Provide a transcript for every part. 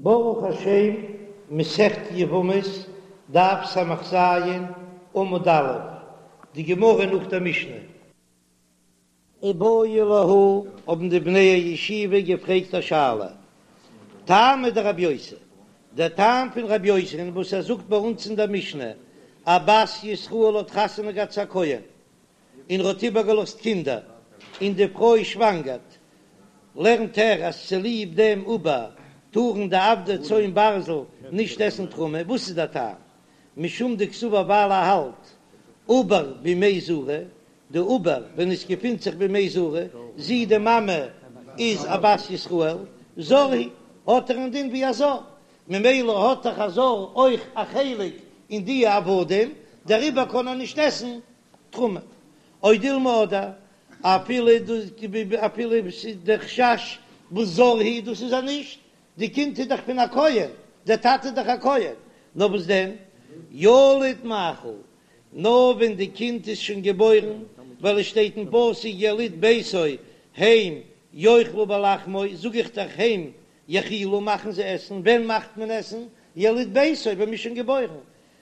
ברוך השם, מסכת יבמות, דף ס"ז, עמוד א', די גמרא נאך דער משנה. איבעיא להו, האבן די בני הישיבה געפרעגט א שאלה, טעמא דרבי יוסי, דער טעם פון רבי יוסי'ן וואס ער זאגט ביי אונז אין דער משנה, א בת ישראל האט חתונה געהאט צו א כהן, און ער האט איבערגעלאזט קינדער, און די פרוי שוואנגערט, לערנט ער אז צוליב דעם עובר טארן די עבדי צאן ברזל נישט עסן תרומה, וואס איז דער טעם? משום דקסבר ווייל ער האלט עובר במעי זרה, די עובר ווען עס געפינט זיך במעי זרה, זי די מאמע איז א בת ישראל, זר הוא, האט ער א דין ווי א זר, ממילא האט דאך א זר אויך א חלק אין די עבדים, דעריבער קען ער נישט עסן תרומה. או דילמא אדער אפילו אפילו ס'איז דער חשש וואס זר הוא דאס איז ער נישט, די קינד איז דאך פון א כהן, דער טאטע איז דאך א כהן, נאר וואס דען ילוד מאכיל, נאר ווען די קינד איז שוין געבוירן, ווייל עס שטייט אין פסוק יליד ביתו הם יאכלו בלחמו, זאג איך דאך הם יאכילו מאכן זיי עסן, ווען מאכט מען עסן? יליד ביתו ווען מ'איז שוין געבוירן,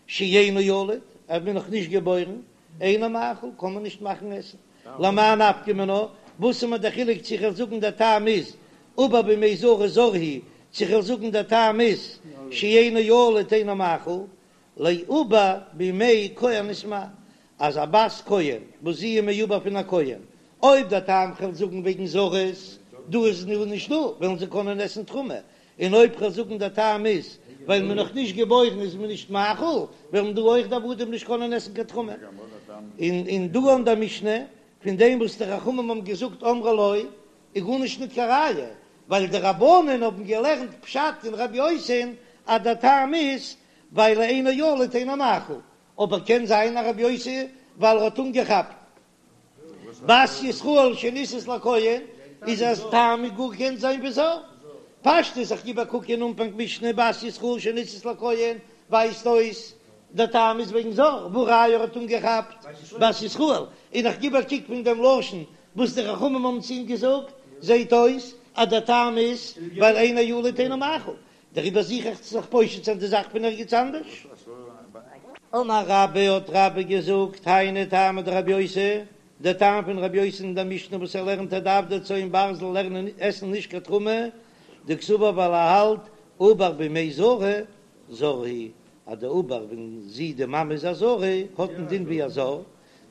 שאינו ילוד, אז מ'איז נאך נישט געבוירן, אינו מאכיל, קען מען נישט מאכן עסן. למאי נפקא מינה, וואס איז מיר דער חילוק צו כ'וועל זאגן דער טעם איז עובר במעי זרה זר הוא, צו כ'וועל זאגן דער טעם איז שאינו ילוד אינו מאכיל, לעובר במעי כהנת מאי, אז א בת כהן וואס זי איז מעובר פון א כהן, אויב דער טעם כ'וועל זאגן וועגן זרות, דא איז נישט דא, וועלן זיי קענען עסן תרומה, און אויב כ'וועל זאגן דער טעם איז ווייל מ'איז נאך נישט געבוירן איז מען נישט מאכיל, וועלן דא אויך די עבדים נישט קענען עסן קיין תרומה. און און דא אין דער משנה, פון דעם וואס די חכמים האבן געזאגט אמרו לו, איז גארנישט ניט קיין ראיה, ווייל די רבנן האבן געלערנט פשט אין רבי יוסי'ן אז דער טעם איז ווייל אינו ילוד אינו מאכיל, אבער קען זיין אז רבי יוסי ווייל ער האט אנגעכאפט בת ישראל שנישאת לכהן איז אז טעם איז גאר קען זיין ווי זר. פשטות איך גיב א קוק אין אנפאנג משנה בת ישראל שנישאת לכהן ווייזט אויס דער טעם איז וועגן זר והא ראיה ער האט אנגעכאפט בת ישראל און איך גיב א קוק פון דעם לשון וואס די חכמים האבן צו אים געזאגט זעהט אויס אז דער טעם איז ווייל אינו ילוד אינו מאכיל דעריבער זוך איך צו זיך פושט זיין די זאך פון ערגעץ אנדערש. אמר רבה האט רבה געזאגט, היינו טעמא דרבי יוסי, דער טעם פון רבי יוסי אין דער משנה וואס ער לערנט אז די עבדי צאן ברזל לערנען עסן נישט קיין תרומה, דקסבר ווייל ער האלט עובר במעי זרה זר הוא, אז די עובר ווען זי די מאמע איז א זרה האט א דין ווי א זר,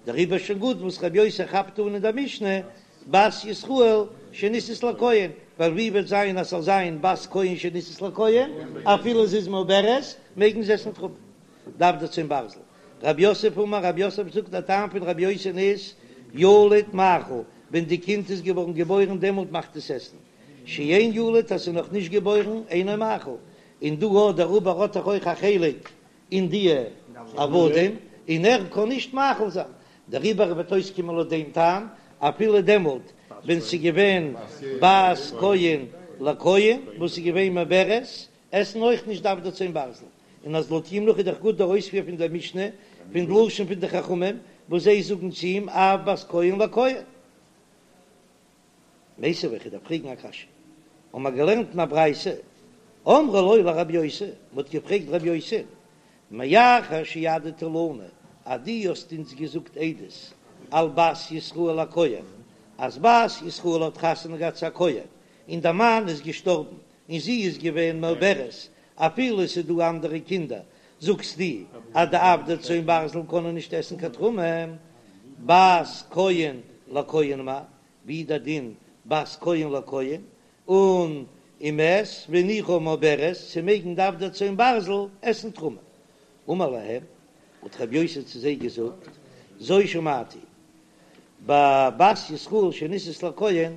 דעריבער שוין גוט וואס רבי יוסי כאפט אן אין דער משנה בת ישראל שנישאת לכהן, ווייל ווי וועט זיין אז ס'זאל זיין בת כהן שנישאת לכהן, אפילו זי איז מעוברת, מעגן זיי עסן תרומה. די עבדי צאן ברזל. רב יוסף אמר, רב יוסף זאגט דער טעם פון רבי יוסי'ן איז, ילוד מאכיל, ווען די קינד איז געווארן געבוירן דעמאלט מאכט עס עסן, שאין ילוד אז ס'איז נאך נישט געבוירן אינו מאכיל, און דא האט דער עובר האט דאך אויך א חלק אין די עבדים, און ער קען נישט מאכיל זיין, דעריבער וועט אויסקומען לויט דעם טעם, אפילו דעמאלט ווען ס'איז געווען בת כהן לכהן וואס איז געווען מעוברת, עסן אויך נישט די עבדי צאן ברזל, און אז לויט אים נאך איז דאך גוט דער אויספיר פון דער משנה, פון לשון פון די חכמים וואס זיי זאגן צו אים אף בת כהן לכהן. מיתיבי, איך דארף פרעגן א קשיא. האבן מיר געלערנט אין א ברייתא, אמרו לו לרבי יוסי, מען האט געפרעגט רבי יוסי, מאחר שהעדת לנו, אז דו האסט אונז געזאגט עדות על בת ישראל לכהן, אז בת ישראל האט חתונה געהאט צו א כהן, און דער מאן איז געשטארבן, און זי איז געווען מעוברת, אפילו עס איז דא אנדערע קינדער, זאגסטו אז די עבדי צאן ברזל קענען נישט עסן קיין תרומה, בת כהן לכהן מאי, ווי דער דין בת כהן לכהן, און ומת והניחה מעוברת צו מעגן די עבדי צאן ברזל עסן תרומה. אמר להם, האט רבי יוסי צו זיי געזאגט, זו שמעתי, בבת ישראל שנישאת לכהן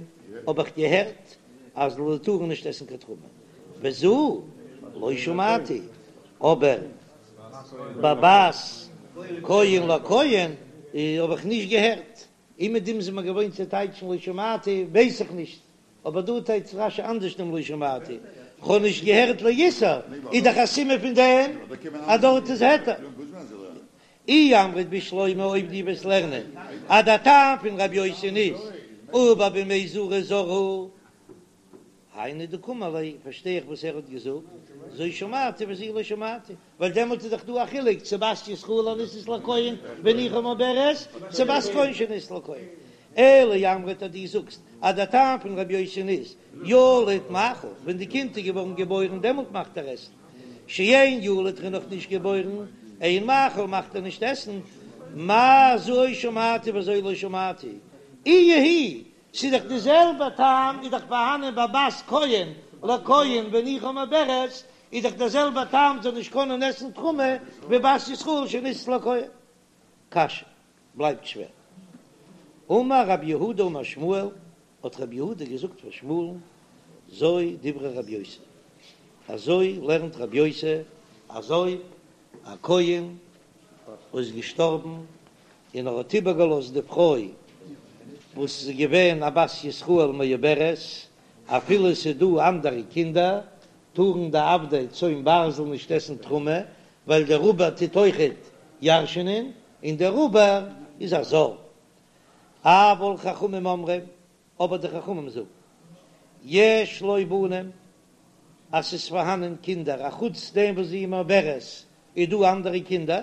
האב איך געהערט אז זיי טארן נישט עסן קיין תרומה, וזו לא שמעתי, אבער בבת כהן לכהן האב איך נישט געהערט. און מיט דעם זעמער געוואוינט צו טייטשן לא שמעתי, ווייס איך נישט, אבער דא טייטשט רש"י אנדערש דעם לא שמעתי, כ'האב נישט געהערט לאיסור, איז דאך א סימן פון דעם אז דארט איז היתר. אי אמרת בשלמא אויב דו וועסט לערנען אז דער טעם פון רבי יוסי'ן איז עובר במעי זרה זר הוא. היינו דקאמר ליה, פארשטיי איך וואס ער האט געזאגט, זו שמעתי וזו לא שמעתי, ווייל דעמאלט איז דאך דא א חילוק צו בת ישראל הנישאת לכהן והניחה מעוברת, צו בת כהן שנישאת לכהן. אלא אי אמרת אז דו זאגסט אז דער טעם פון רבי יוסי'ן איז ילוד מאכיל, ווען די קינד איז געווארן געבוירן דעמאלט מאכט ער עסן, שאין ילוד ער איז נאך נישט געבוירן, אין מאכיל מאכט ער נישט עסן, מאי זו שמעתי וזו לא שמעתי, איהי היא ס'איז דאך די זעלבע טעם איז דאך פארהאנען ביי בת כהן לכהן והניחה מעוברת, איז דאך דער זעלבע טעם זאל נישט קענען עסן תרומה ווי בת ישראל שנישאת לכהן. קשיא, בלייבט שווער. אמר רב יהודה אמר שמואל, האט רב יהודה געזאגט פאר שמואל'ן, זו דברי רב יוסי, אזוי לערנט רב יוסי, אז אויב א כהן איז געשטארבן און ער האט איבערגעלאזט די פרוי וואס איז געווען א בת ישראל מעוברת, אפילו עס איז דא אנדערע קינדער, טארן די עבדי צאן ברזל נישט עסן תרומה, ווייל דער עובר טוט אויכעט ירש'נען, און דער עובר איז א זר. אבל חכמים אומרים, אבער די חכמים זאגן, יש לו בנים, אז ס'איז פארהאנען קינדער, אחוץ דעם וואס זי איז מעוברת, איז דא אנדערע קינדער,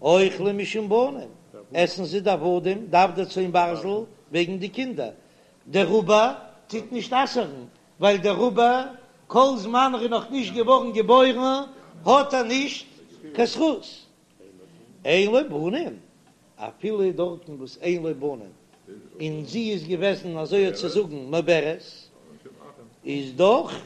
אוכלים משום בנים, עסן זיי די עבדים, די עבדי צאן ברזל, וועגן די קינדער. דער עובר טוט נישט אסר'ן, ווייל דער עובר, כל זמן ער איז נאך נישט געווארן געבוירן, האט ער נישט קיין זכות. אין לו בנים, אפילו דארטן וואס אין לו בנים, און זי איז געוועזן אזוי האט צו זאגן מעוברת, איז דאך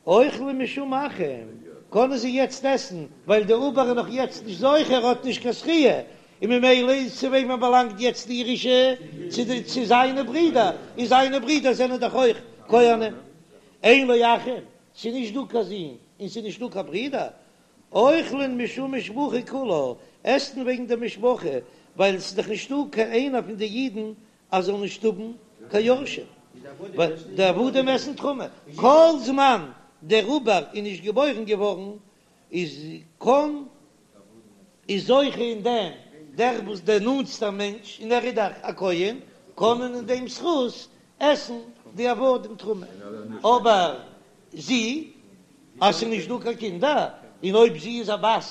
אוכלים משום אחים, קענען זיי יעצט עסן, ווייל דער עובר איז נאך יעצט נישט זוכה, ער האט נישט קיין זכיה, און ממילא איז צו וועמען באלאנגט יעצט די ירושה, צו די צו זיינע ברידער, און זיינע ברידער זענען דאך אויך כהנים. אין לו אחים, ס'איז נישט דא קיין זין, און ס'איז נישט דא קיין ברידער, אוכלין משום משפחה כולה, עסן וועגן די משפחה, ווייל עס איז דאך נישטא קיין איינער פון די אידן אז זאל נישט האבן קיין יורשים, ווייל די עבדים עסן תרומה, כל זמן דער עובר איז נישט געבוירן געווארן איז קאן איז זוכה אין דעם דער וואס דער נאנטסטער מענטש און ער איז דאך א כהן, קענען אין דעם זכות עסן די עבדים תרומה, אבער זי, אז ס'איז נישט דא קיין קינדער, און אויב זי איז א בת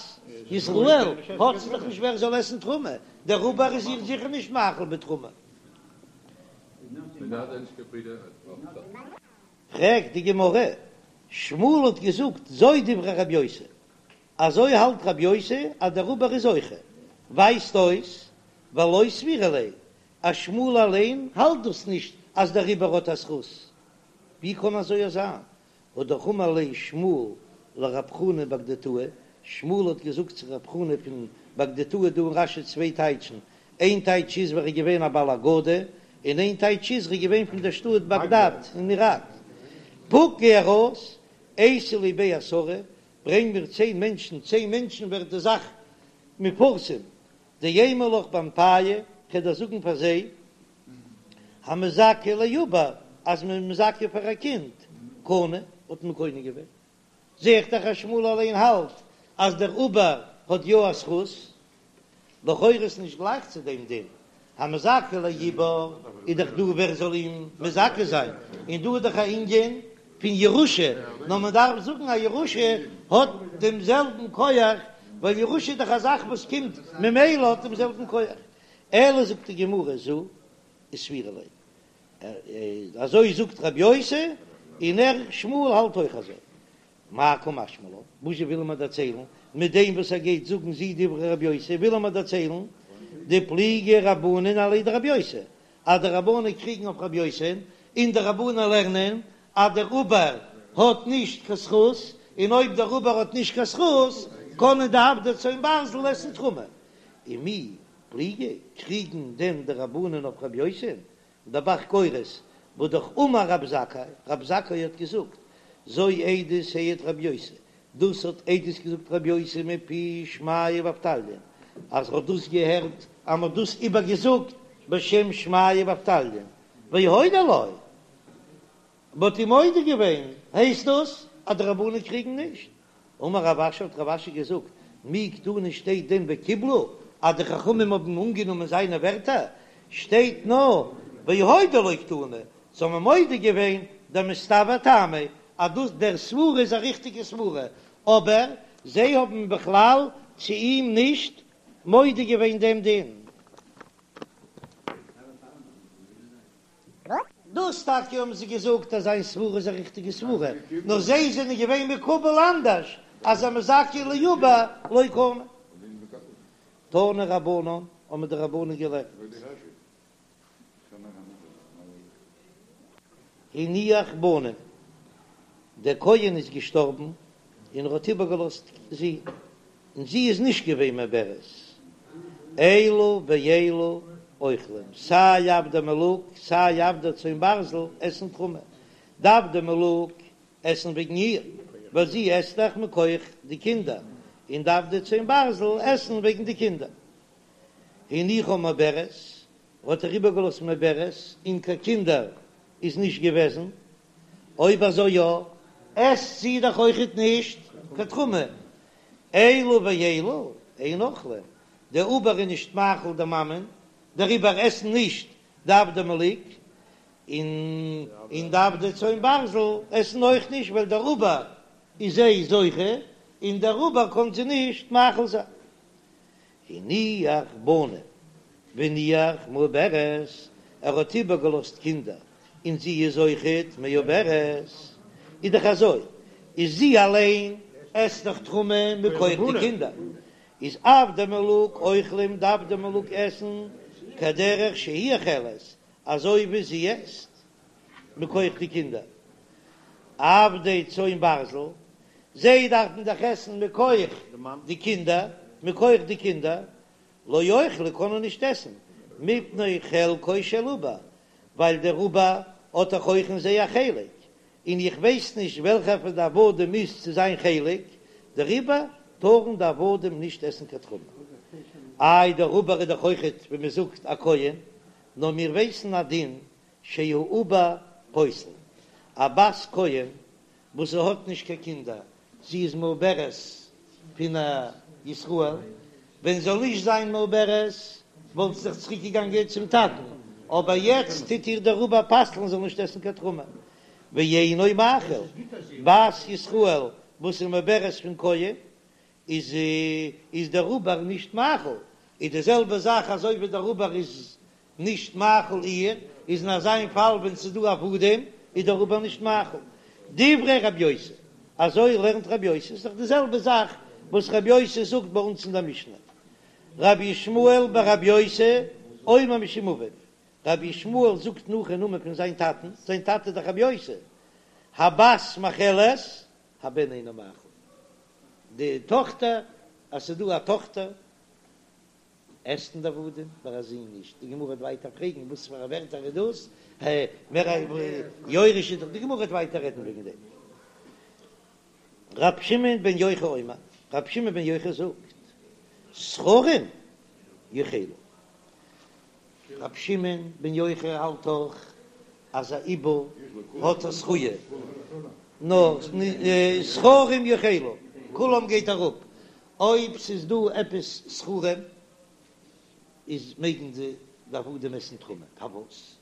ישראל, האט זי דאך נישט ווער זאל עסן תרומה, דער עובר איז איר זיכער נישט מאכיל בתרומה. פרעגט די גמרא, שמואל האט געזאגט זו דברי רבי יוסי, אזוי האלט רבי יוסי אז דער עובר איז זוכה, ווייזט אויס ולא סבירא ליה אז שמואל אליין האלט דאס נישט אז דער עובר האט א זכות, ווי קען אזוי זיין? האט דאך אמר ליה שמואל לרב חנא בגדתאה, שמואל האט געזאגט צו רב חנא פון בגדתאה, דא אין רש"י צוויי טייטשן, איין טייטש איז ווער איז געווען א בעל אגדה, און איין טייטש איז ער איז געווען פון דער שטאט באגדאד אין איראק. פוק גיי ארויס, אייתי לי בי עשרה, ברענג מיר צען מענטשן, צען מענטשן ווערט די זאך מפורסם, דאימא לך באנפייהו, כ'וועל דיר זאגן פאר זיי, המזכה לעובר, אז מען איז מזכה פאר א קינד, קנה, האט מען קונה געווען. זע איך דאך אז שמואל אליין האלט אז דער עובר האט יא א זכות. לכאורה איז נישט גלייך צו דעם דין, המזכה לעובר איז דאך דא ווער זאל אים מזכה זיין, און דא איז דאך א ענין פון ירושה, נאר מען דארף זאגן אז ירושה האט דעם זעלבן כח, ווייל ירושה איז דאך א זאך וואס קומט ממילא האט דעם זעלבן כח. אלא זאגט די גמרא זו וסבירא ליה, אזוי זאגט רבי יוסי, און ער שמואל האלט אויך אזוי. מאי קא משמע לן, וואס זשע וויל ער מיר דערציילן מיט דעם וואס ער גייט זאגן זו דברי רבי יוסי, וויל ער מיר דערציילן דפליגי רבנן עליה דרבי יוסי, אז די רבנן קריגן אויף רבי יוסי, און די רבנן לערנען אז דער עובר האט נישט קיין זכות, און אויב דער עובר האט נישט קיין זכות, קענען די עבדי צאן ברזל עסן תרומה. ומי פליגי, קריגן דען די רבנן אויף רבי יוסי? דער ב"ח גורס, והא דאך אמר רב זכאי, רב זכאי האט געזאגט, זו עדות העיד רבי יוסי, דאס האט עדות געזאגט רבי יוסי מפי שמעיה ואבטליון, אז ער האט דאס געהערט אז מען האט דאס איבערגעזאגט בשם שמעיה ואבטליון, והודו לו, מען האט אים מודה געווען, הייסט דאס אז די רבנן קריגן נישט? אמר רב אשי האט רב אשי געזאגט, מי קתני שטייט דען וקיבלו אז די חכמים האבן אנגענומען זיינע ווערטער? שטייט נאר והודו לו קתני, זיי האבן מודה געווען. דמסתברא טעמיה, אז דאס דער סברה איז א ריכטיגע סברה, אבער זיי האבן בכלל צו אים נישט מודה געווען דעם דין. דאס טאקע האבן זיי געזאגט אז זיין סברה איז א ריכטיגע סברה, נאר זיי זענען געווען מקובל אנדערש אז המזכה לעובר לא קנה. תנו רבנן, האבן די רבנן געלערנט. הניח בנים, דער כהן איז געשטארבן און ער האט איבערגעלאזט זין, און זי איז נישט געווען מעוברת, אלו ואלו אוכלים, סיי עבדי מלוג סיי עבדי צאן ברזל עסן תרומה, די עבדי מלוג עסן וועגן איר, ווייל זי עסט דאך מכח די קינדער, און די עבדי צאן ברזל עסן וועגן די קינדער. הניחה מעוברת, האט ער איבערגעלאזט מעוברת, און קיין קינדער איז נישט געוועזן, אויב אזוי יא, עסט זי דאך אויכעט נישט קיין תרומה, אלו ואלו אין אוכלים, דער עובר איז נישט מאכיל די מאמען, דעריבער עסן נישט די עבדי מלוג, און און די עבדי צאן ברזל עסן אויך נישט, ווייל דער עובר איז זיי זוכה, און דער עובר קען זיי נישט מאכיל זיין. הניח בנים והניח מעוברת, ער האט איבערגעלאזט קינדער און זי איז אויכעט מעוברת, איז דאך אזוי, איז זי אליין עסט דאך תרומה מכח די קינדער, איז עבדי מלוג אוכלים די עבדי מלוג עסן כדרך שהיא אוכלת, אזוי ווי זי עסט מכח די קינדער. עבדי צאן ברזל, זיי דארפן דאך עסן מכח די קינדער, מכח די קינדער, לא יאכלו קענען נישט עסן, מפני חלקו של עובר, ווייל דער עובר האט דאך אויך אין זיי א חלק, און איך ווייס נישט וועלכער פון די עבדים איז צו זיין חלק, דעריבער טארן די עבדים נישט עסן קיין תרומה. איי דער עובר איז דאך אויכעט ווי מען זאגט א כהן, נאר מיר ווייסן א דין שהעובר פוסל, א בת כהן וואס זי האט נישט קיין קינדער, זי איז מעוברת פון א ישראל, ווען זאל נישט זיין מעוברת וואלט זי זיך צוריק געגאנגען צום טאטן, אבער יעצט טוט איר דער עובר פסל'ן זאל נישט עסן קיין תרומה, ואינו מאכיל, בת ישראל וואס איז מעוברת פון כהן איז איז דער עובר נישט מאכיל, איז די זעלבע זאך אזוי ווי דער עובר איז נישט מאכיל איר, איז אין אזא פאל ווען ס'איז דא עבדים איז דער עובר נישט מאכיל. דברי רב יוסי, אזוי לערנט רב יוסי, ס'איז דאך די זעלבע זאך וואס רב יוסי זאגט ביי אונז אין דער משנה. רבי ישמעאל ברבי יוסי אומר משום אביו, רבי ישמעאל זאגט נאך אין נאמען פון זיין טאטן, זיין טאטע איז דאך רבי יוסי, הבת מאכלת הבן אינו מאכיל. די טאכטער, אז ס'איז דא א טאכטער עסן די עבדים, ביי א זון נישט. די גמרא וועט ווייטער פרעגן וואס פאר א ווערטער איז דאס, מער א יורש איז דאך, די גמרא וועט ווייטער רעדן וועגן דעם. ר' שמעון בן יוחאי אומר, ר' שמעון בן יוחאי זאגט, זכרים יאכלו. ר' שמעון בן יוחאי האלט אויך אז א עובר האט א זכיה, נאר זכרים יאכלו, כולם גייט אראפ, אויב ס'איז דא עפעס זכרים איז מעגן די עבדים עסן תרומה, פארוואס?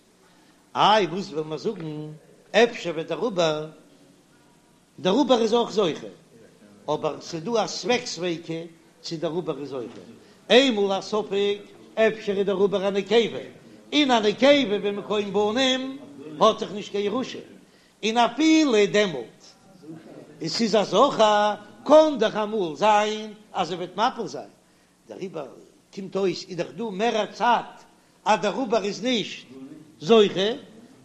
איי וואס וועל מיר זאגן, אפשר וועט דער עובר דער עובר איז אויך זוכה, אבער ס'דא א ספק ספיקא צו דער עובר איז זוכה, איינמאל א ספק אפשר איז דער עובר א נקבה, און א נקבה במקום בנים האט דאך נישט קיין ירושה, און אפילו דעמאלט עס איז א זכר קען דאך אמאל זיין אז ער וועט מפיל זיין, דעריבער קומט אויס איז דאך דא מער א צד אז דער עובר איז נישט זוכה,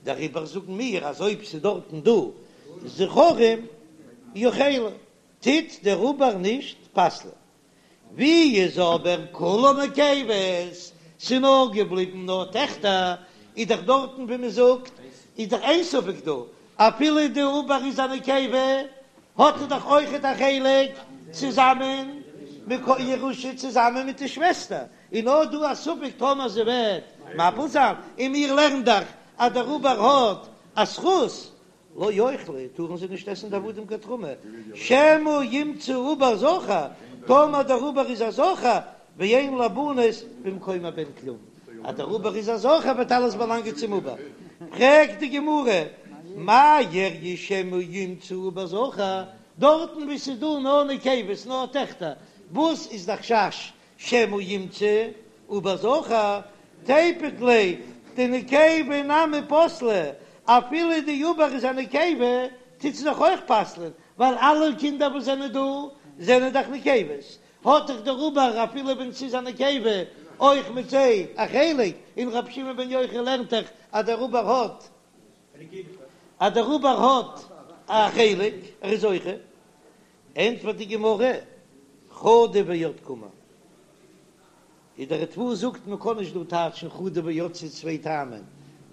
דעריבער זאגן מיר אז אויב ס'איז דארטן דא זכרים יאכלו, טוט דער עובר נישט פסל'ען. ווי איז אבער כולן נקבות, ס'איז נאר געבליבן נאר טעכטער, איז דאך דארטן ווי מ'זאגט איז דאך אין ספק דא, אפילו די עובר איז א נקבה האט ער דאך אויכעט א חלק צוזאמען מיט ירושה צוזאמען מיט די שוועסטער, און נאר דא א ספק טאמער זי וועט מפיל זיין, און מיר לערנען דאך אז דער עובר האט א זכות, לא יאכלו, טארן זיי נישט עסן די עבדים קיין תרומה, שמא ימצא עובר זכר, טאמער דער עובר איז א זכר, ואין לבנות במקום הבן כלום, אז דער עובר איז א זכר וועט אלעס באלאנגען צום עובר. פרעגט די גמרא. מאי איריא שמא ימצא עובר זכר, דארטן וואו ס'איז דא נאר נקבות, נאר טעכטער, וואס איז די חשש שמא ימצא עובר זכר, תיפוק ליה דנקבה נמי פסלה, אפילו די עובר איז א נקבה, טוט זי דאך אויך פסל'ען, ווייל אלע קינדער וואס זענען דא זענען דאך נקבות, האט דאך דער עובר אפילו ווען ס'איז א נקבה אויך מיט זיי א חלק, און רבי שמעון בן יוחאי לערנט דאך אז דער עובר האט אז דער עובר האט א חלק, ער איז זוכה. ענטפערט די גמרא, חדא ועוד קאמר. איז דער ריטב"א זאגט מען קען נישט דא טייטשן חדא ועוד ס'איז צוויי טעמים,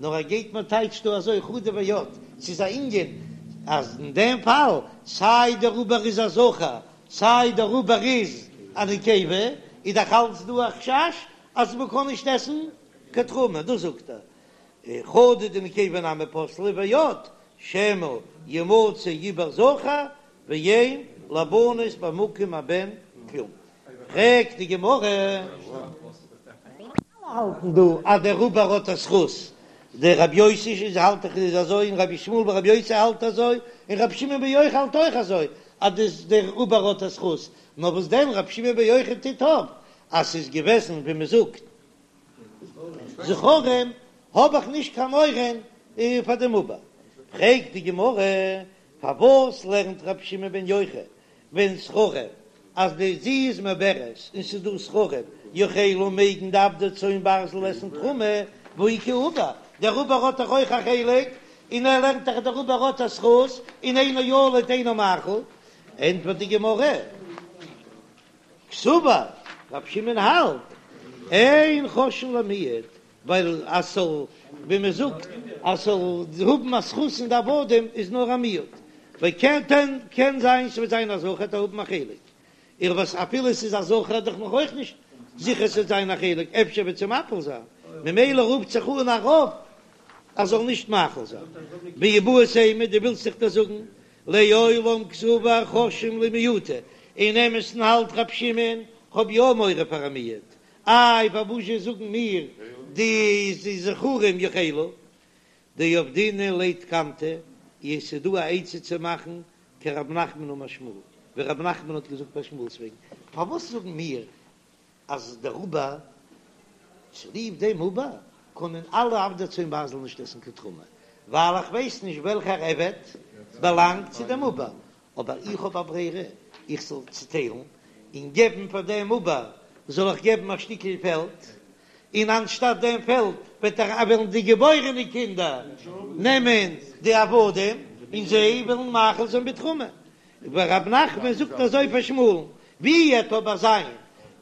נאר ער גייט מען טייטשט דא אזוי חדא ועוד, ס'איז א ענין אז אין דעם פאל סיי דער עובר איז א זכר סיי דער עובר איז א נקבה, איז דאך אלץ דא א חשש אז מען קען נישט עסן קיין תרומה, דאס זאגט ער חדא דנקבה נמי פסלה ועוד שמא ימצא עובר זכר ואין לבנות במקום הבן כלום. פרעגט די גמרא. אלע האלטן דא אז דער עובר האט א זכות, דער רבי יוסי איז האלט דאך איז אזוי און רבי ישמעאל ברבי יוסי האלט אזוי און רבי שמעון בן יוחאי האלט אויך אזוי אז דאס דער עובר האט א זכות, נאר וואס דען רבי שמעון בן יוחאי טוט אויף אז ס'איז געוועזן ווי מ'זאגט זכרים האב איך נישט קיין מורא פאר דעם עובר. פרעגט די גמרא פארוואס לערנט רבי שמעון בן יוחאי ווען זכרים אז די זי איז מעוברת און ס'איז דא זכרים יאכלו מעגן די עבדי צאן ברזל עסן תרומה והא איכא עובר דער עובר האט דאך אויך א חלק און ער לערנט דאך דער עובר האט א זכות און אינו ילוד אינו מאכיל ענטפערט די גמרא קסבר רב שמעון האלט אין חוששין למיעוט ווייל אז ס'זאל, ווי מען זאגט, אז ס'זאל האבן א זכות אין די עבדים איז נאר א מיעוט, ווייל קען קען זיין ס'וועט זיין א זכר וועט ער האבן א חלק, איך ווייס אפילו ס'איז א זכר איז דאך נאך אויך נישט זיכער ס'וועט זיין א חלק, אפשר וועט זי מפיל זיין, ממילא רופט זיך אן א רוב אז זאל נישט מאכיל זיין. ואיבעית אימא, דו ווילסט זיך דאס זאגן, לעולם קסבר חוששין למיעוטא, אין אמת'ן האלט רב שמעון, כ'האב יא מורא פאר א מיעוט, איי פארוואזשע זאגן מיר די זכרים יאכלו דעבדינן ליה תקנתא, עס איז דא א עצה צו מאכן כרב נחמן אמר שמואל, ווי רב נחמן האט געזאגט ביי שמואל'ס וועגן, פארוואס זאגן מיר אז דער עובר צוליב דעם עובר קענען אלע עבדי צאן ברזל נישט עסן קיין תרומה, ווייל איך ווייס נישט וועלכער עבד באלאנגט צו דעם עובר, אבער איך האב א ברירה, איך זאל צוטיילן און געבן פאר דעם עובר זאל איך געבן א שטיקל פעלד, און אנשטאט דעם פעלד וועט ער וועלן די געבוירענע קינדער נעמען די עבדים און זיי וועלן מאכיל זיין בתרומה. ורב נחמן זאגט אזוי פאר שמואל'ן, ווי וועט אבער זיין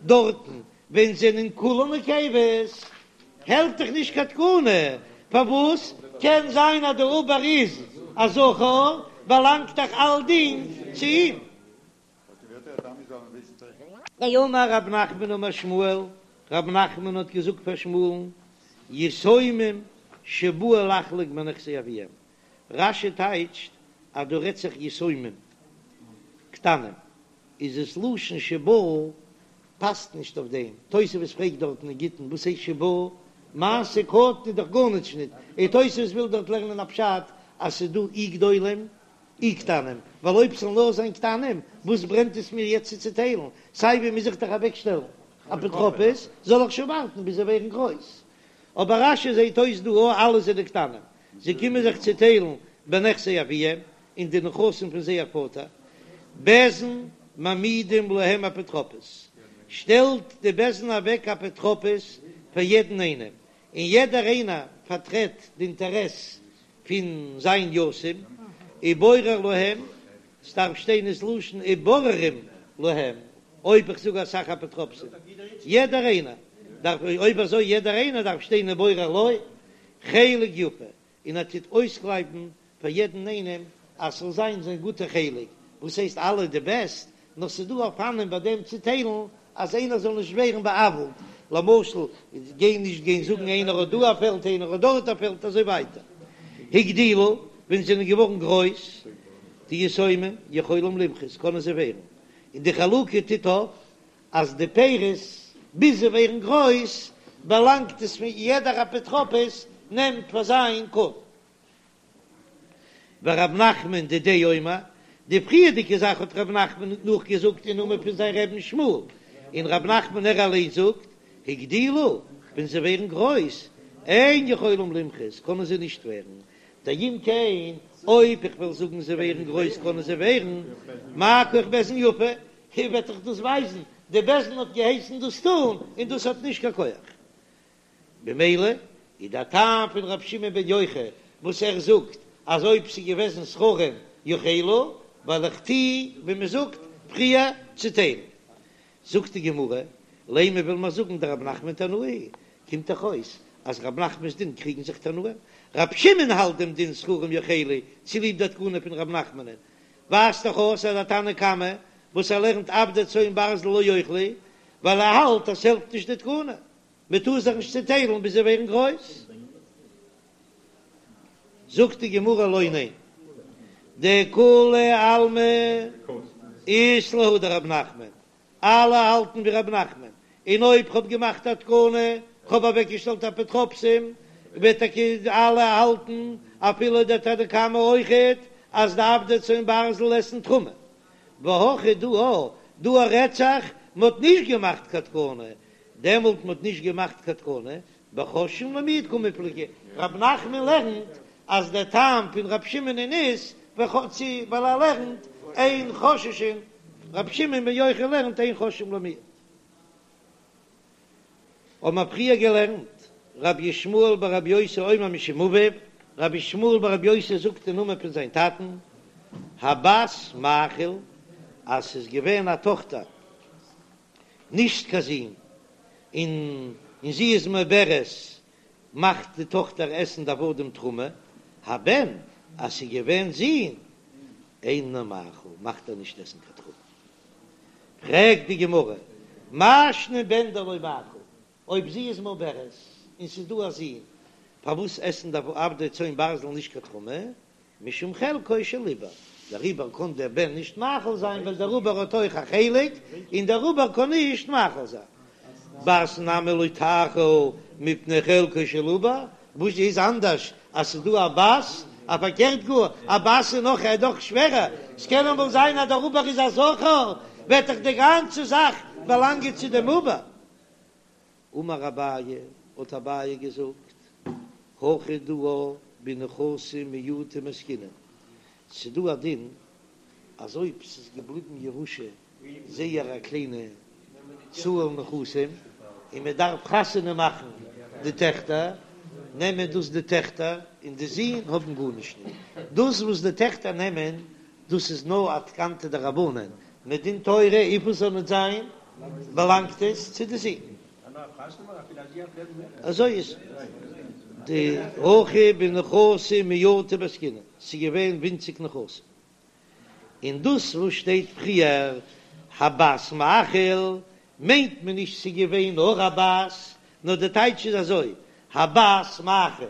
דארטן ווען זענען כולן נקבות, העלפט דאך נישט קיין תקנה, פארוואס קען זיין אז דער עובר איז א זכר, באלאנגט דאך אלדינג צו אים. אמר רב נחמן אמר שמואל, רב נחמן האט געזאגט פאר שמואל'ן, יתומים שבאו לחלוק בנכסי אביהם, רש"י טייטשט אז דא רעדט זיך יתומים קטנים, איז עס לשון שבאו פאסט נישט אויף דעם, תוספות פרעגט דארטן אין גיטין וואס הייסט שבאו, מעשה קטן איז דאך גארנישט ניט, און תוספות וויל דארט לערנען א פשט אז ס'איז דא אי גדולים אי קטנים, ווייל אויב ס'זאל נאר זיין קטנים וואס ברענט עס מיר יעצט צו צוטיילן, סיי ווי מוז איך דאך אוועקשטעלן אפוטרופוס, זאל איך שוין ווארטן ביז זיי ווערן גרויס. אבער רש"י זעהט אויס דא או אלע זענען קטנים, זיי קומען זיך צוטיילן בנכסי אביהם, אין די נכסים פון זייער פאטער, בית דין מעמידים להם אפוטרופוס, שטעלט די בית דין אוועק אפוטרופוס פאר יעדן איינעם, און יעדער איינער פארטרעט די אינטערעס פון זיין יתום, ובורר להם, ס'דארף שטיין איז לשון ובוררים להם, אויב איך זאג אסאך אפוטרופסים, יעדער איינער דארף, אויב אזוי יעדער איינער דארף שטיין ובורר לו חלק יפה, און ער טוט אויסקלייבן פאר יעדן איינעם אז ס'זאל זיין זיין גוטע חלק, וואס הייסט אלע די בעסט, נאר ס'איז דא אופנים ביי דעם צוטיילן אז איינער זאל נישט ווערן בא'עוול'ט, למשל גיין נישט גיין זאגן איינער האט דא א פעלד איינער האט דארט א פעלד אזוי ווייטער. הגדילו, ווען זיי זענען געווארן גרויס די יתומים יכולים למחות קענען זיי ווערן, און די חלוקה טוט אויף אז די פירות ביז זיי ווערן גרויס באלאנגט עס פון יעדער אפוטרופוס נעמט פאר זיין קרן. ורב נחמן דידיה אומר, די פריערדיגע זאך האט רב נחמן נאכגעזאגט אין נאמען פון זיין רבי'ן שמואל, און רב נחמן ער אליין זאגט, הגדילו, ווען זיי ווערן גרויס, אין יכולים למחות, קענען זיי נישט ווערן, דאם כן, אויב איך וועל זאגן זיי ווערן גרויס קענען זיי ווערן, מה כח בית דין יפה, וועט דאך דאס ווייזן, די בית דין האט געהייסן דאס טון, און דאס האט נישט קיין כח. במילא איז דער טעם פון רבי שמעון בן יוחאי וואס ער זאגט אז אויב ס'איז געוועזן זכרים יאכלו, ווייל איך טוה ווי מ'זאגט פריער צוטיילן. זאגט די גמרא, לימא וויל מען זאגן דרב נחמן תנאי, קומט דאך אויס אז רב נחמנ'ס דין קריגן זיך תנאים, רב שמעון האלט דעם דין זכרים יאכלו צוליב די תקנה פון רב נחמנ'ן, ווייזט דאך אויס אז דער תנא קמא וואס ער לערנט עבדי צאן ברזל לא יאכלו, ווייל ער האלט אז ס'העלפט נישט די תקנה, מען טאר זיך נישט צעטיילן ביז זיי ווערן גרויס. זאגט די גמרא לא ניין, דכולי עלמא אית להו דרב נחמן, אלע האלטן ווי רב נחמן, און אויב כ'האב געמאכט א תקנה, כ'האב אוועקגעשטעלט אפוטרופסים, וועט טאקע אלע האלטן, אפילו דער תנא קמא אויכעט, אז די עבדי צאן ברזל עסן תרומה. והכא דא א, דא א רעדט זיך, מ'האט נישט געמאכט קיין תקנה, דעמאלט מ'האט נישט געמאכט קיין תקנה, בחוששין למיעוט קמיפלגי, רב נחמן לערנט אז דער טעם פון רב שמעונ'ען איז ווייל ער לערנט אין חוששין, רב שמעון בן יוחאי לערנט אין חוששין למיעוט. האבן מיר פריער געלערנט, רבי ישמעאל ברבי יוסי אומר משום אביו, רבי ישמעאל ברבי יוסי זאגט אין נאמען פון זיין טאטן, הבת מאכיל, אז ס'איז געווען א טאכטער, נישט קיין זון, און און זי איז מעוברת, מאכט די טאכטער עסן די עבדים תרומה, הבן, אז ס'איז געווען זון, אינו מאכיל, מאכט ער נישט עסן קיין תרומה. פרעגט די גמרא, מאי שנא בן דלא מאכיל, אויב זי איז מעוברת און ס'איז דא א זון, פארוואס עסן די עבדי צאן ברזל נישט קיין תרומה? משום חלקו של עובר, דער עובר קען דער בן נישט מאכיל זיין ווייל דער עובר האט אויך א חלק, און דער עובר קען נישט מאכיל זיין. בת נמי לא תאכיל מפני חלקו של עובר, וואס איז אנדערש אז ס'איז דא א בת, א פארקערט גאר, א בת איז נאך איז דאך שווערער, ס'קען אמאל זיין אז דער עובר איז א זכר, וועט דאך די גאנצע זאך באלאנגען צו דעם עובר. אמר אביי, האט אביי געזאגט, הכא דא בנכסים מועטים עסקינן, ס'דא א דין אז אויב ס'איז געבליבן ירושה זייער א קליינע צאל נכסים און מען דארף חתונה מאכן די טעכטער, נעמען דאס די טעכטער און די זין האבן גארנישט נישט, דאס וואס די טעכטער נעמען דאס איז נאר א תקנתא דרבנן, מדין תורה וויפיל ס'זאל נישט זיין באלאנגט עס צו די זין. אזוי איז די הכא בנכסים מועטים עסקינן, ס'איז געווען ווינציג נכסים, און דאס וואס שטייט פריער הבת מאכיל מיינט מען נישט ס'איז געווען נאר א בת, נאר די טייטש איז אזוי הבת מאכיל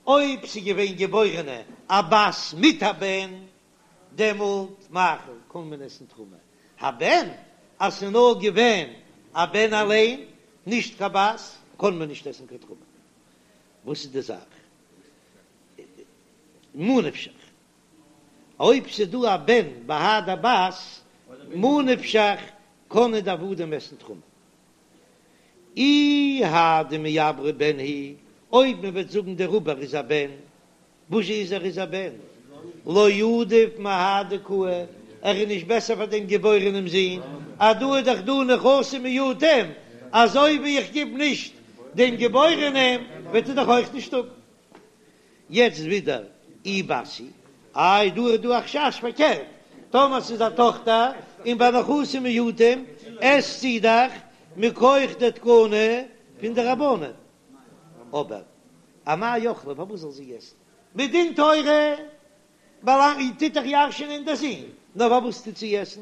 אויב ס'איז געווען געבוירענע א בת מיט א בן דעמאלט מאכיל קען מען עסן תרומה, הבן אז ס'איז נאר געווען א בן אליין נישט קיין בת קען מען נישט עסן קיין תרומה, וואס איז די זאך? ממה נפשך אויב ס'איז דא א בן בהדי בת, ממה נפשך קענען די עבדים עסן תרומה. אי האי דמעברא בן הוא, אויב מען וועט זאגן דער עובר איז א בן, וואס איז ער איז א בן? לא עדיף מהאי דקאי, ער איז נישט בעסער פאר דעם געבוירענעם זון, אז דא איז דאך דא נכסים מועטים, אזוי ווי איך גיב נישט דעם געבוירענעם וועט ער דאך אויך נישט האבן. יעצט ווידער אי בת היא, איי דא איז דא א חשש פארקערט, טאמער ס'איז א טאכטער און ביי נכסים מועטים עסט זי דאך מכח די תקנה פון די רבנן, אבער אמאי אכלה פארוואס זאל זי עסן? מדין תורה באלאנגט טוט דאך ירש'ענען דער זון, נאר פארוואס טוט זי עסן?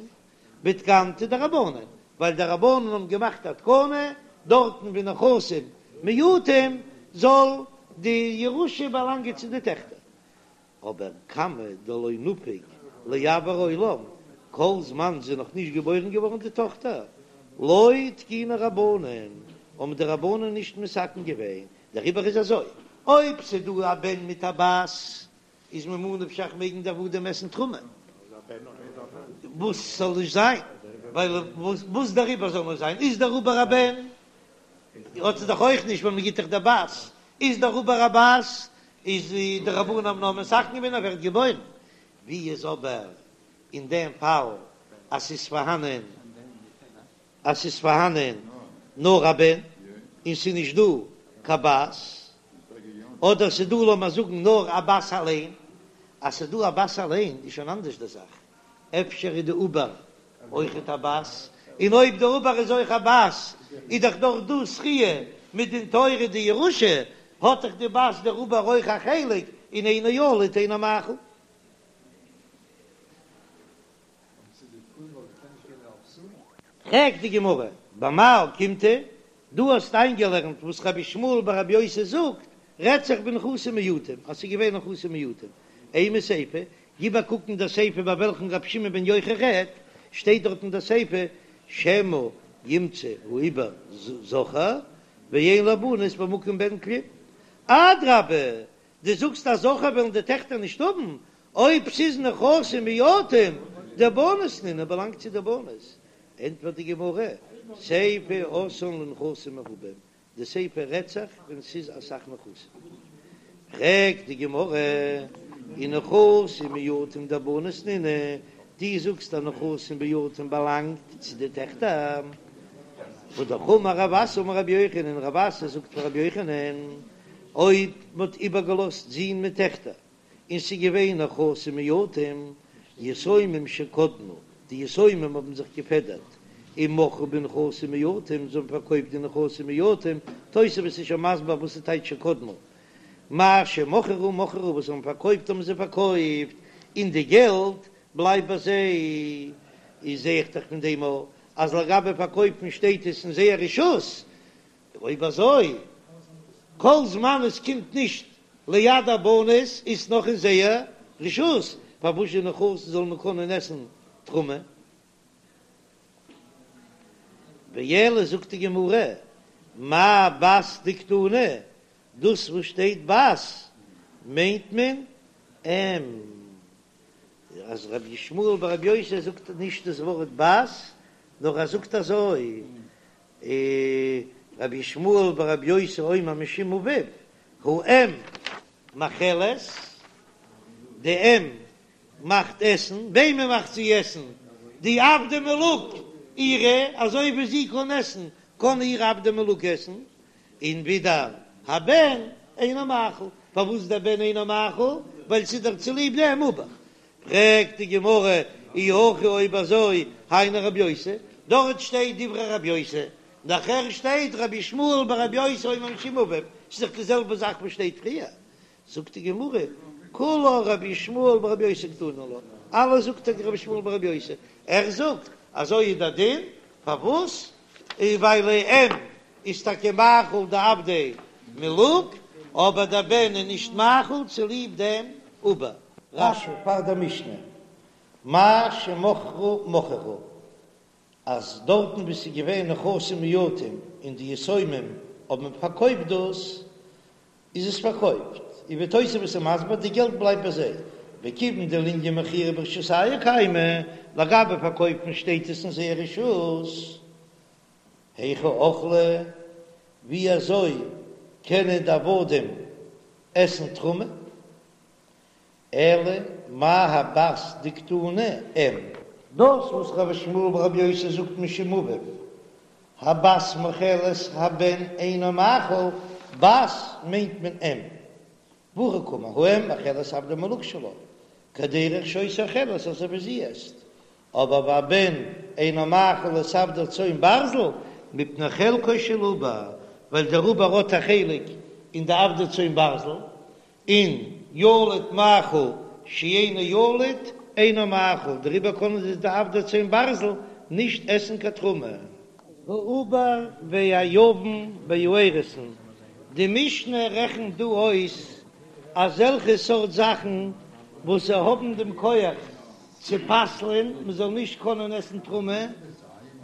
בתקנתא דרבנן, ווייל די רבנן האבן געמאכט א תקנה דארטן ווי נכסים מועטים זאל די ירושה באלאנגען צו די טעכטער, אבער כמה דלא נפיק לאויר העולם, כל זמן זי איז נאך נישט געבוירן געווארן די טאכטער, לא תקינו רבנן, האבן די רבנן נישט מתקן געווען, דעריבער איז אזוי, אויב ס'דא א בן מיט א בת. איז ממה נפשך מעגן די עבדים עסן תרומה, וואס זאל נישט זיין, ווייל וואס דער עובר זאל נישט זיין, איז דער עובר א בן, האט זי דאך אויך נישט ווייל מען גיט דאך די בת, איז דער עובר א בת, איז די רבנן האבן נאר מתקן געווען אז ווערט געבוירן, ווי איז אבער אין דעם פאל אז ס'איז פארהאנען אז ס'איז פארהאנען נאר א בן און ס'איז נישט דא קיין בת, אדער ס'איז דא לאמיר זאגן נאר א בת אליין, אז ס'איז דא א בת אליין איז שוין אנדערש די זאך, אפשר איז די עובר אויכעט א בת, און אויב די עובר איז אויך א בת איז דאך דאך דא זכיה מדין תורה די ירושה, האט דאך די בת דער עובר אויך א חלק, און אינו ילוד אינו מאכיל. פרעגט די גמרא, במאי אוקימתא, דו האסט איינגעלערנט וואס רבי ישמעאל ברבי יוסי זאגט, רעדט זיך בנכסים מועטים, אז ס'איז געווען נכסים מועטים, אימא סיפא, גיב א קוק אין דער סיפא ביי וועלכן רבי שמעון בן יוחאי רעדט, שטייט דארט אין דער סיפא, שמא ימצא העובר זכר ואין לבנות במקום בן כלום, אדרבה, דו זאגסט אז זכר וועלן די טעכטער נישט האבן, אויב ס'איז נכסים מועטים, דבנות נינהו באלאנגט צו די בנות, ענטפערט די גמרא, סיפא אתאן לנכסים מרובים, די סיפא רעדט זיך ווען ס'איז אסאך נכסים. פרעגט די גמרא, ונכסים מועטים דבנות נינהו, דו זאגסט אז נכסים מועטים באלאנגט צו די טעכטער, והא דאך אמר רב אסי אמר רבי יוחנן, רב אסי זאגט פאר רבי יוחנן, אויב מ'האט איבערגעלאזט זין מיט טעכטער, און ס'איז געווען נכסים מועטים, יתומים שקדמו, די יתומים האבן זיך געפעדערט, ומכרו בנכסים מועטים, זיי האבן פארקויפט די נכסים מועטים, תוספות איז שוין מסביר וואס איז טייטש שקדמו, מה שמכרו מכרו, וואס זיי האבן פארקויפט האבן זיי פארקויפט, און די געלט בלייבט ביי זיי, איז זע איך דאך פון דעם אז לגבי פארקויפן שטייט עס אין זייער רשות, אויב אזוי, כל זמן עס קומט נישט ליד הבנות איז נאך אין זייער רשות, פארוואס די נכסים זאל מען קענען עסן תרומה? ואלא זאגט די גמרא, מאי בת דקתני, דאס וואס שטייט בת מיינט מען אם. אז רבי ישמעאל ברבי יוסי זאגט נישט דאס ווארט בת, נאר ער זאגט אזוי, רבי ישמעאל ברבי יוסי אומר משום אביו, האם מאכלת, די אם מאכט עסן, וועמען מאכט זי עסן? די עבדי מלוג אירע, אזוי ווי זי קען עסן, קען איר עבדי מלוג עסן, און ווידער הבן אינו מאכיל, פארוואס דער בן אינו מאכיל? ווייל ס'איז דאך צוליב דעם עובר. פרעגט די גמרא, אי הכי אויב אזוי היינו רבי יוסי, דארט שטייט דברי רבי יוסי, נאכער שטייט רבי ישמעאל ברבי יוסי אומר משום אביו, ס'איז דאך די זעלבע זאך וואס שטייט פריער, זאגט די גמרא, כולה רבי ישמעאל ברבי יוסי קתני לה, אלעס זאגט טאקע רבי ישמעאל ברבי יוסי, ער זאגט אזוי איז דער דין, פארוואס? ווייל אם איז טאקע מאכיל די עבדי מלוג, אבער דער בן איז נישט מאכיל צוליב דעם עובר. רש"י פאר דער משנה, מה שמכרו מכרו, אז דארטן וואו ס'איז געווען נכסים מועטים און די יתומים האבן פארקויפט דאס, איז עס פארקויפט, און ווי תוספות איז מסביר, די געלט בלייבט ביי זיי, וכיוון דלענין מכירה ברשותייהו קיימא, לגבי פארקויפן שטייט עס אין זייער רשות. היכי אכלי, ווי אזוי קענען די עבדים עסן תרומה? אלא מאי הבת דקתני אם. דאס וואס רבי ישמעאל ברבי יוסי זאגט משום אביו, הבת מאכלת הבן אינו מאכיל, בת מיינט מען אם. והכי קאמר, האם מאכלת עבדי מלוג שלה, כדרך שהיתה אוכלת אזוי ווי זי עסט, אבער והבן אינו מאכיל את עבדי צאן ברזל מפני חלקו של עובר, ווייל דער עובר האט א חלק אין די עבדי צאן ברזל, און ילוד מאכיל שאינו ילוד אינו מאכיל, דעריבער קענען זיי די עבדי צאן ברזל נישט עסן קיין תרומה. העובר והיבם והאירוסין, די משנה רעכנט דא אויס אזעלכע סארט זאכן וואס זיי האבן דעם כח צו פסל'ען מען זאל נישט קענען עסן תרומה,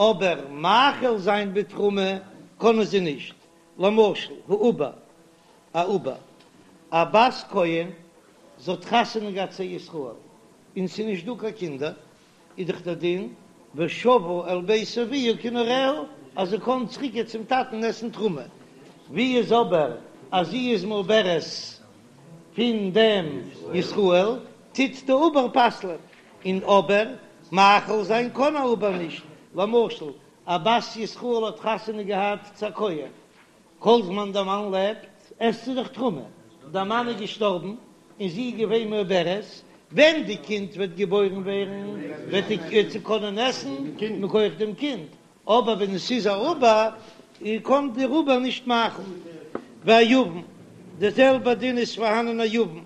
אבער מאכיל זיין בתרומה קענען זיי נישט, למשל העובר, א עובר, א בת כהן. זי האט חתונה געהאט צו ישראל און ס'איז נישט דא קיין קינדער, איז דאך דער דין ושבה אל בית אביה כנעוריה אז זי קען צוריק גיין צום טאטן עסן תרומה, ווי איז אבער אז זי איז מעוברת פון דעם ישראל טוט די עובר פסל'ען, און אבער מאכיל זיין קען א עובר נישט, למשל א בת ישראל האט חתונה געהאט צו א כהן, כל זמן דער מאן לעבט עסט זי דאך תרומה, דער מאן איז געשטארבן און זי איז געווען מעוברת, ווען די קינד וועט געבוירן ווערן וועט זי קענען עסן מכח דעם קינד, אבער ווען עס איז א עובר קען דער עובר נישט מאכיל. והיבם, די זעלבע דין איז פארהאנען א יבם,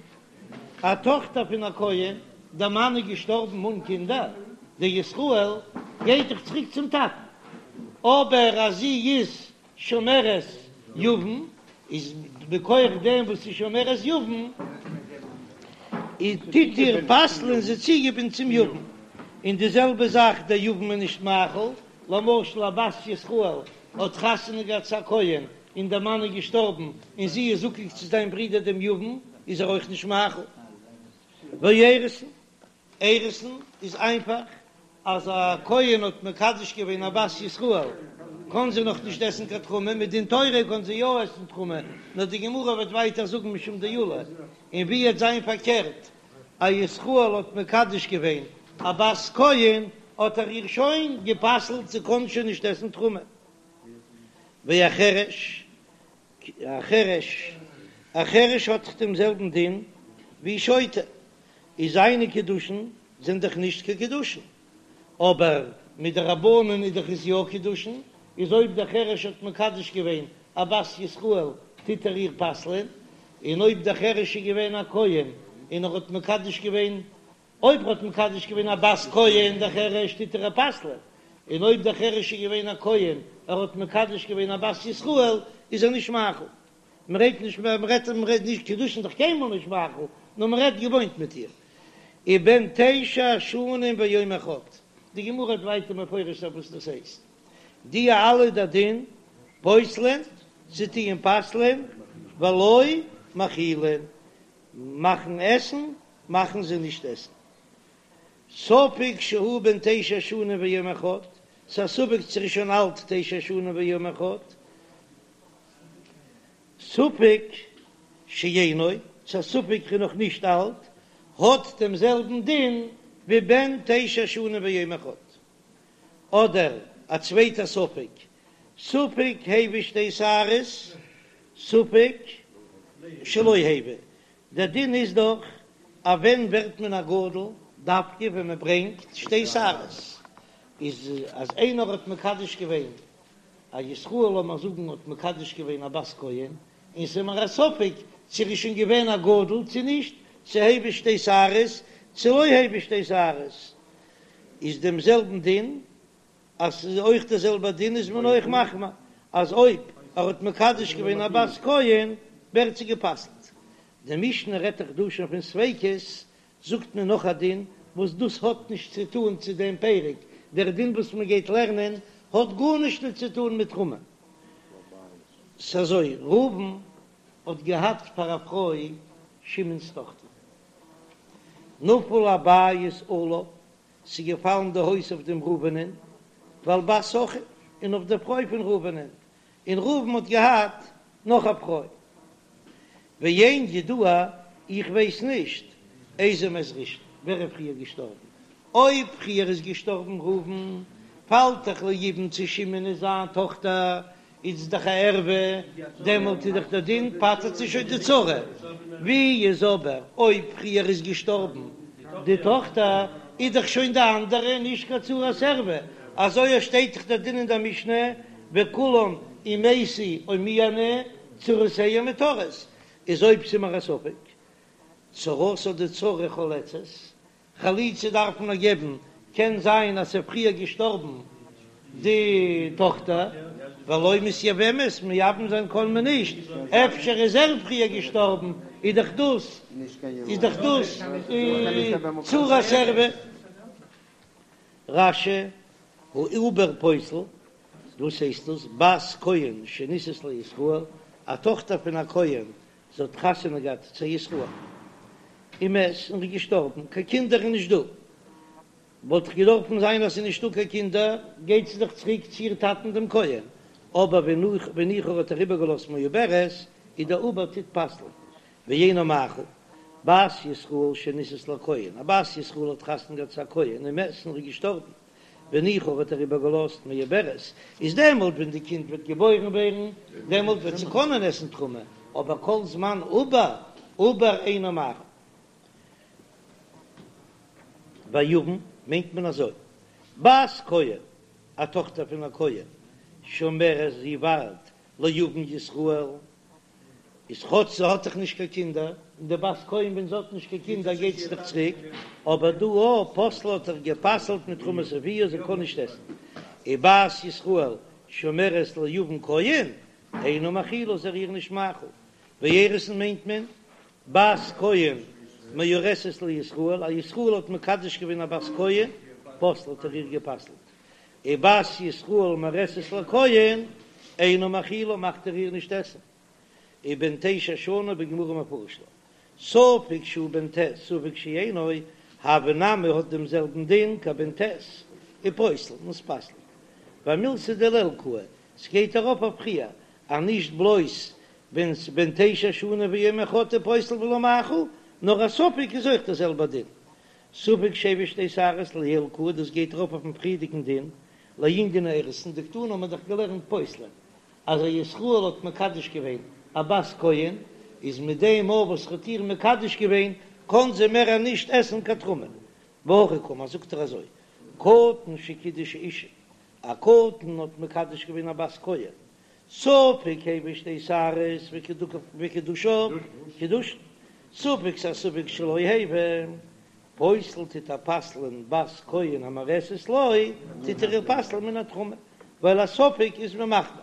א טאכטער פון א כהן, דער מאן איז געשטארבן אן קינדער, דער ישראל גייט דאך צוריק צום טאטן, אבער אז זי איז שומרת יבם איז מכח דעם וואס איז שומרת יבם איז טוט איר פסל'ען זי צוגעבינדן צום יבם, און די זעלבע זאך דער יבם איז נישט מאכיל, למשל א בת ישראל האט חתונה געהאט צו א כהן און דער מאן איז געשטארבן און זי איז זקוק צו זיין ברודער דעם יבם איז ער אויך נישט מאכיל. ואירוסין. אירוסין איז איינפאך, אז א כהן האט מקדש געווען א בת ישראל קען זי נאך נישט עסן קיין תרומה, מדין תורה קען זי יא עסן תרומה, נאר די גמרא וועט ווייטער זאגן משום דעולא, און ווי וועט זיין פארקערט, א ישראל האט מקדש געווען א בת כהן האט ער איר שוין גע'פסל'ט זי קען שוין נישט עסן תרומה. והחרש א חרש, א חרש האט דאך דעם זעלבן דין ווי שוטה, איז זיינע קידושין זענען דאך נישט קיין קידושין, אבער מדרבנן איז דאך עס יא קידושין, איז אויב דער חרש האט מקדש געווען א בת ישראל טוט ער איר פסל'ען, און אויב דער חרש איז געווען א כהן און ער האט מקדש געווען אויב ער האט מקדש געווען א בת כהן דער חרש טוט ער איר פסל'ען, און אויב דער חרש איז געווען א כהן ער האט מקדש געווען א בת ישראל איז ער נישט מאכיל. מען רעדט נישט מען רעדט מען רעדט נישט קידושין דאך קיינמאל נישט מאכיל, נאר מען רעדט געוואוינט מיט איר. ובן תשע שנים ויום אחד, די גמרא האט ווייטער מפרש זיין וואס דאס הייסט, די אלע די דין פוסלין, זיי טוען פסל'ען, ולא מאכילין, מאכן עסן מאכן זיי נישט עסן. ספק שהוא בן תשע שנים ויום אחד, ס'איז א ספק צו ער איז שוין אלט תשע שנים ויום אחד, ספק שאינו, ס'איז א ספק ער איז נאך נישט אלט, האט דעם זעלבן דין ווי בן תשע שנים ויום אחד. אדער א צווייטע ספק, ספק הביא שתי שערות, ספק שלא הביא, דער דין איז דאך אז ווען ווערט מען א גדול, דווקא ווען מען ברענגט שתי שערות, איז אז איינער האט מקדש געווען א ישראל לאמיר זאגן האט מקדש געווען א בת כהן, און ס'איז מיר א ספק צו ער איז שוין געווען א גדול צו נישט, צו הביא שתי שערות צו לא הביא שתי שערות, איז דעם זעלבן דין אז ס'איז אויך דער זעלבער דין איז מען אויך מחמיר אז אויב ער האט מקדש געווען א בת כהן ווערט זי גע'פסל'ט. די משנה רעדט דאך דא שוין פון ספיקות, זאגט מען נאך א דין וואס דאס האט נישט צו טאן צו דעם פרק, דער דין וואס מען גייט לערנען האט גארנישט נישט צו טאן מיט תרומה. ס'אזוי, ראובן האט געהאט פאר א פרוי שמעון'ס טאכטער. נפל הבית עליו, ס'איז געפאלן די הויז אויף דעם ראובנ'ען, ועל בת אחיו, און אויף דער פרוי פון ראובנ'ען, און ראובן האט געהאט נאך א פרוי. ואין ידוע, איך ווייס נישט, איזה מת ראשון, ווער איז פריער געשטארבן, אויב פריער איז געשטארבן ראובן, פאלט דאך ליבום צו שמעון איז זיין טאכטער, איז דאך א ערווה, דעמאלט איז דאך דער דין פטר'ט זי שוין די צרה, ווי איז אבער אויב פריער איז געשטארבן די טאכטער, איז דאך שוין די אנדערע נישט קיין צרת ערווה, אזוי שטייט דאך דער דין אין דער משנה, וכולם אם מתו או מיאנו צרותיהן מותרות, איז אויב ס'איז מיר א ספק, צרתה די צרה חולצת, חליצה דארף מען נאר געבן, קען זיין אז ס'איז פריער געשטארבן די טאכטער, ולא מתייבמת, מייבם זיין קען מען נישט, אפשר איז ער פריער געשטארבן, איז דאך דאס איז דאך דאס צרת ערווה. רש"י, העובר פוסל, וואס הייסט דאס, בת כהן שנישאת לישראל, א טאכטער פון א כהן זי האט חתונה געהאט צו ישראל. ומת און איז געשטארבן, קיין קינדער איז נישט דא, וואלט דאך געדארפן זיין אז ס'איז נישטא קיין קינדער, גייט זי דאך צוריק צו איר טאטן דעם כהן, אבער והניחה האט ער איבערגעלאזט מעוברת, איז דער עובר טוט פסל'ן, ואינו מאכיל, בת ישראל שנישאת לכהן, א בת ישראל האט חתונה געהאט צו א כהן ומת און איז געשטארבן, והניחה האט ער איבערגעלאזט מעוברת, איז דעמאלט ווען די קינד וועט געבוירן ווערן, דעמאלט וועט זי קענען עסן תרומה, אבער כל זמן עובר, עובר אינו מאכיל. והיבם מיינט מען אזוי, בת כהן, א טאכטער פון א כהן, שומרת זי ווארט ליבם ישראל, איז כאטש זי האט דאך נישט קיין קינדער, און די בת כהן ווען זי האט נישט קיין קינדער גייט זי דאך צוריק, אבער דא א פוסלה האט ער גע'פסל'ט מתרומת אביה זי קען נישט עסן, ובת ישראל שומרת ליבם כהן, אינו מאכילה איז ער איר נישט מאכיל, ואירוסין מיינט מען בת כהן מאורסת לישראל, א ישראל האט מקדש געווען א בת כהן, פוסלה האט ער איר גע'פסל'ט, ובת ישראל מאורסת לכהן, אינו מאכילה מאכט ער איר נישט עסן, ובן תשע שנה בגמרא מפרש לה, ספק שהוא בן ט' ספק שאינו, הוי נמי האט דעם זעלבן דין כבן ט', ופוסל און ס'פסל'ט. ואמילתא דלעיל קאי, ס'גייט ארויף אויף פריער, אז נישט בלויז ווען ס'בן תשע שנה ויום אחד איז פוסל ולא מאכיל, נאר א ספק איז אויך דער זעלבער דין. ספק שהביא שתי שערות לעיל קאי, דאס גייט ארויף אויפן פריערדיגן דין, לענין האירוסין, דקתני האט מען דאך געלערנט פוסלין, אז א ישראל האט מקדש געווען א בת כהן, איז מיט דעם מאל וואס ער האט איר מקדש געווען, קען זי מער נישט עסן קיין תרומה. והכי קאמר, זאגט ער אזוי, קטן שקידש אשה, א קטן האט מקדש געווען א בת כהן, ספק הביא שתי שערות וקידושיו קידושין, ספק ס'א ספק שלא הביא, פוסל טוט ער פסל'ען בת כהן המאורסת לו, טוט ער איר פסל'ען מן התרומה, ווייל א ספק איז מען מחמיר.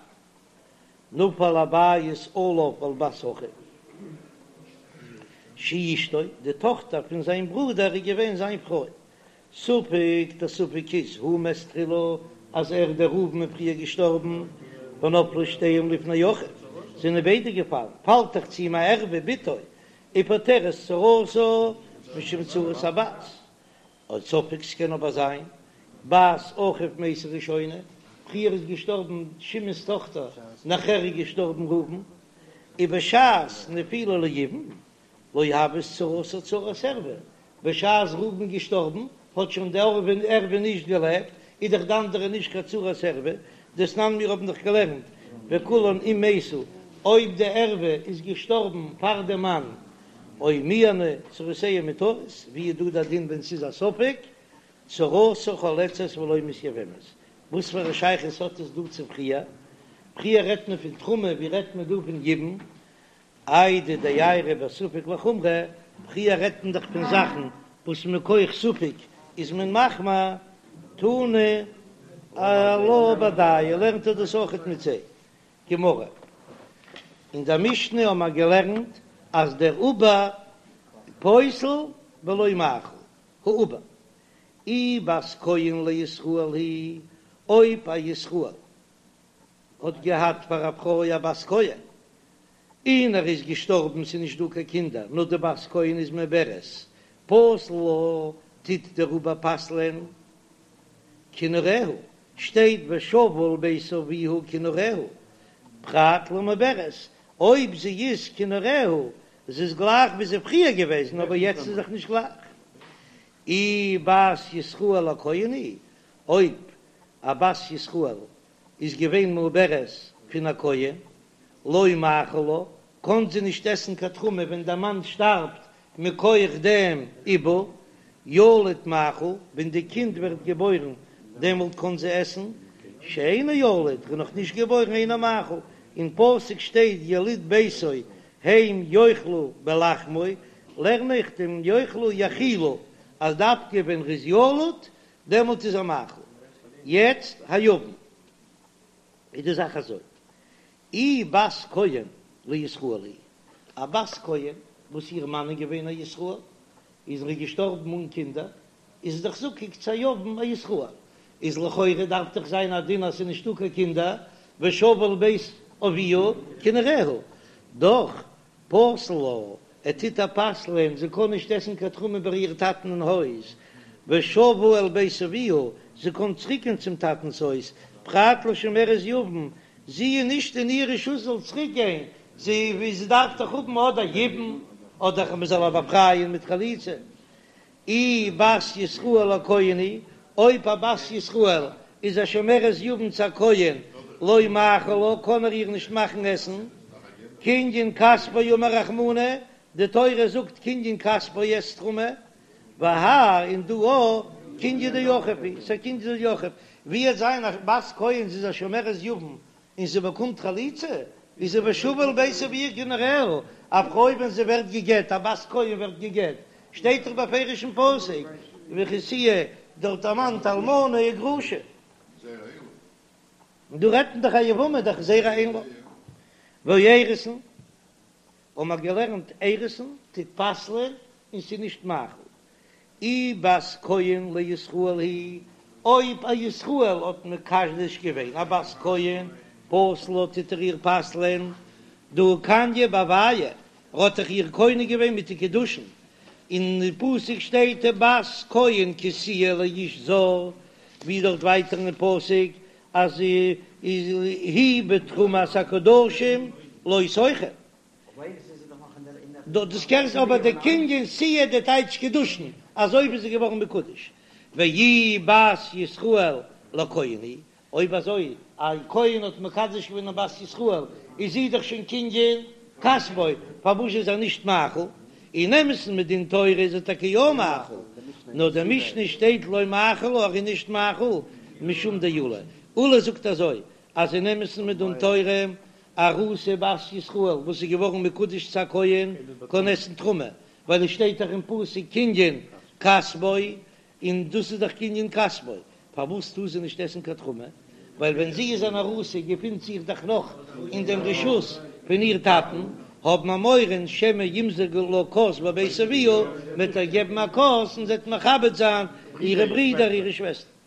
נפל הבית עליו ועל בת אחיו שהיא אשתו, די טאכטער פון זיין ברודער איז געווען זיין פרוי, ספק, דער ספק איז הוא מת תחילה אז ער דער ראובן איז פריער געשטארבן, ונפלו שתיהן לפני אחיו, זענען ביידע געפאלן, פאלט דאך צו אים א ערווה בתו, ופוטרת צרתה משום צרת הבת, או ספק ס'קען אבער זיין בת אחיו מתה ראשונה, פריער איז געשטארבן שמעון'ס טאכטער נאכער איז געשטארבן ראובן, ובשעת נפילה ליבום לא הוות צרתה צרת ערווה, בשעת ראובן געשטארבן האט שוין די ערווה נישט געלעבט, איז דאך די אנדערע נישט קיין צרת ערווה, דתנן מיר האבן דאך געלערנט וכולן אם מתו, אויב די ערווה איז געשטארבן פאר די מאן או מיאנו צרותיהן מותרות, ווי איז דא די דין ווען ס'איז א ספק, צרתה חולצת ולא מתייבמת, וואס פאר א שייכות האט עס דא צו פריער? פריער רעדט מען פון תרומה, ווי רעדט מען דא פון יבום? איידי דאיירי בספק לחומרא, פריער רעדט מען דאך פון זאכן וואס מכח ספק איז מען מחמיר, תנא עלה בהדיא, לערנט ער דאס אויכעט מיט זיי. גמרא. אין דער משנה האבן מיר געלערנט אז דער עובר פוסל ולא מאכיל, העובר, אי בת כהן לישראל היא, אויב א ישראל האט געהאט פאר א פרוי א בת כהן, און ער איז געשטארבן, ס'איז נישט דא קיין קינדער, נאר די בת כהן איז מעוברת, פוסל לה, טוט דער עובר פסל'ען כנעוריה, שטייט ושבה אל בית אביה כנעוריה, פרט למעוברת, אויב זי איז כנעוריה, זי איז גלייך ווי זי איז פריער געוועזן, אבער יעצט איז דאך נישט גלייך. אי בת ישראל לכהן היא, אויב א בת ישראל איז געווען מעוברת פון א כהן, לא מאכיל לה, קען זי נישט עסן קיין תרומה ווען דער מאן שטארבט מכח דעם עיבור, ילוד מאכיל, ווען די קינד ווערט געבוירן דעמאלט קען זי עסן, שאינו ילוד, ער איז נאך נישט געבוירן אינו מאכיל, אין פסוק שטייט יליד ביתו הם יאכלו בלחמו, לערן איך דעם יאכלו יאכילו, אז דווקא ווען ר'איז ילוד דעמאלט איז ער מאכיל. יעצט היבם איז די זאך אזוי, אי בת כהן לישראל היא, א בת כהן וואס איר מאן איז געווען א ישראל, איז ער געשטארבן אן קינדער, איז זי דאך זקוק צו א יבם א ישראל, איז לכאורה דארף דאך זיין א דין אז ס'איז נישטא קיין קינדער, ושבה אל בית אביה כנעוריה, דאך פוסל לה. ער טוט איר פסל'ען, זי קען נישט עסן קיין תרומה ביי איר טאטן אין הויז, ושבה אל בית אביה, זי קען צוריקגיין צום טאטנ'ס הויז, פרט לשומרת יבם, זי איז נישט אין איר רשות זאל צוריק גיין, זי זי דארף דאך האבן אדער יבום, אדער מען זאל איר באפרייען מיט חליצה. אי בת ישראל לכהן היא, אויב א בת ישראל איז א שומרת יבם צו א כהן, לא מאכיל לה, קען ער איר נישט מאכן עסן, קנין כספו אמר רחמנא, די תורה זאגט קנין כספו עסט תרומה, והאי און דא א קנין דאחיו הוא, ס'א קנין דאחיו, ווי וועט זיין א בת כהן זי איז א שומרת יבם און זי באקומט חליצה, איז זי ושבה אל בית אביה גענערעל, א פרוי ווען זי ווערט גע'גט, א בת כהן ווערט גע'גט, שטייט דאך בפירוש אין פסוק, וכי תהיה דארט דערמאנט אלמנה וגרושה. און דא רעדט מען דאך א יבמה דאך זרע אין לה. והאירוסין, האבן מיר געלערנט אירוסין טוט פסל'ען און ס'איז נישט מאכיל. אי בת כהן לישראל היא, אויב א ישראל האט מקדש געווען א בת כהן, פוסל לה טוט ער איר פסל'ען, דהא קניה בהויה, ער האט דאך איר קונה געווען מיט די קידושין, אין די פסוק שטייט בת כהן כי תהיה לאיש זר, ווי דארט ווייטער אין פסוק אז היא בתרומת הקדשים לא תאכל. דאס קענסט אבער די קנין תהיה די טייטש קידושין אזוי ווי זי איז געווארן מקודש ואי בת ישראל לכהן היא, אויב אזוי א כהן האט מקדש געווען א בת ישראל איז זי דאך שוין קנין כספו, פארוואס איז ער נישט מאכיל? אין אמת'ן מדין תורה איז ער טאקע יא מאכיל, נאר די משנה שטייט לא מאכיל לה ער איז נישט מאכיל משום דעולא, עולא זאגט אזוי אז אין אמת'ן מדין תורה ארוסה בת ישראל וואס איז געווארן מקודש צו א כהן קען עסן תרומה, ווייל עס שטייט דאך אין פסוק קנין כספו, און דאס איז דאך קנין כספו, פארוואס טאר זי נישט עסן קיין תרומה? ווייל ווען זי איז אן ארוסה געפינט זיך דאך נאך אין דעם רשות פון איר טאטן, האבן מיר מורא שמא ימזגו לה כוס בבית אביה, מ'וועט איר געבן א כוס און זי וועט מכבד זיין אירע ברידער אירע שוועסטער.